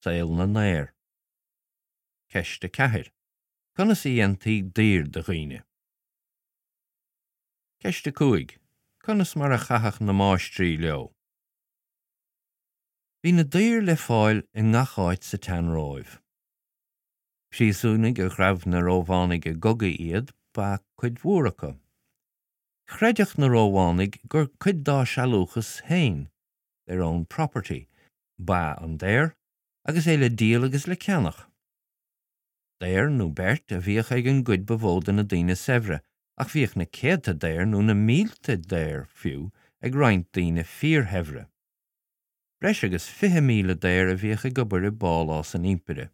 Saol na ndaor. Ceist 4. Conas a dhéantaí daoir de dhaoine? Ceist 5. Conas mar a chaitheadh na máistrí leo? Bhí na daoir le fáil i ngach áit sa tSean-Róimh. Príosúnaigh a ghabh na Rómhánaigh i gcogaí iad ba ea cuid mhór acu. Chreideadh na Rómhánaigh gur cuid dá sealúchas féin, their own property, ba ea an daor, agus é le díol agus le ceannach. Daor nó beirt a bhíodh ag an gcuid ba mhó de na daoine saibhre, ach bhíodh na céadta daor nó na mílte daor, fiú, ag roinnt daoine fíorshaibhre. Breis agus 20,000 daor a bhíodh ag obair i bpálás an impire.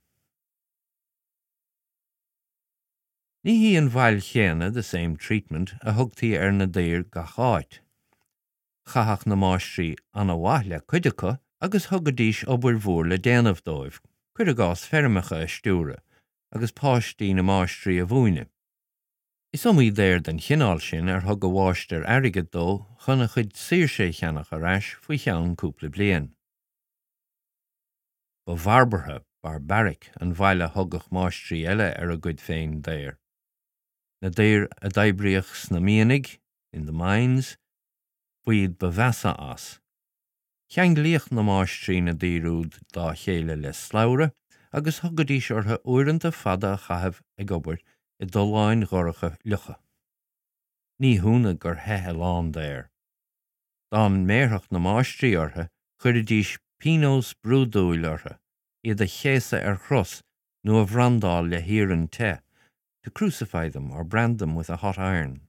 Ní hí an bhail chéanna, the same treatment, a thugtaí ar na daoir gach áit. Chaitheadh na máistrí ana-mhaith le cuid acu agus thugaidís obair mhór le déanamh dóibh, cuir i gcás feirmeacha a stiúradh agus páistí na máistrí a mhúineadh. Is iomaí daor den chineál sin ar thug a mháistir airgead dó chun a chuid saoirse a cheannach ar ais faoi cheann cúpla bliain. Ba bharbartha, barbaric, an bhail a thugadh máistrí eile ar a gcuid féin daor. Na daoir a d'oibríodh sna mianaigh, in the mines, ba iad ba mheasa as. Cheanglaíodh na máistrí na daoir úd dá chéile le slabhra agus thugaidís orthu uaireanta fada a chaitheamh ag obair i dtolláin dhorcha fhliucha. Ní hionadh gur theith a lán daor. Dá mbéarfadh na máistrí orthu chuiridís pionós brúidiúil orthu, iad a chéasadh ar chros nó a bhrandáil le hiarann te, to crucify them or brand them with a hot iron.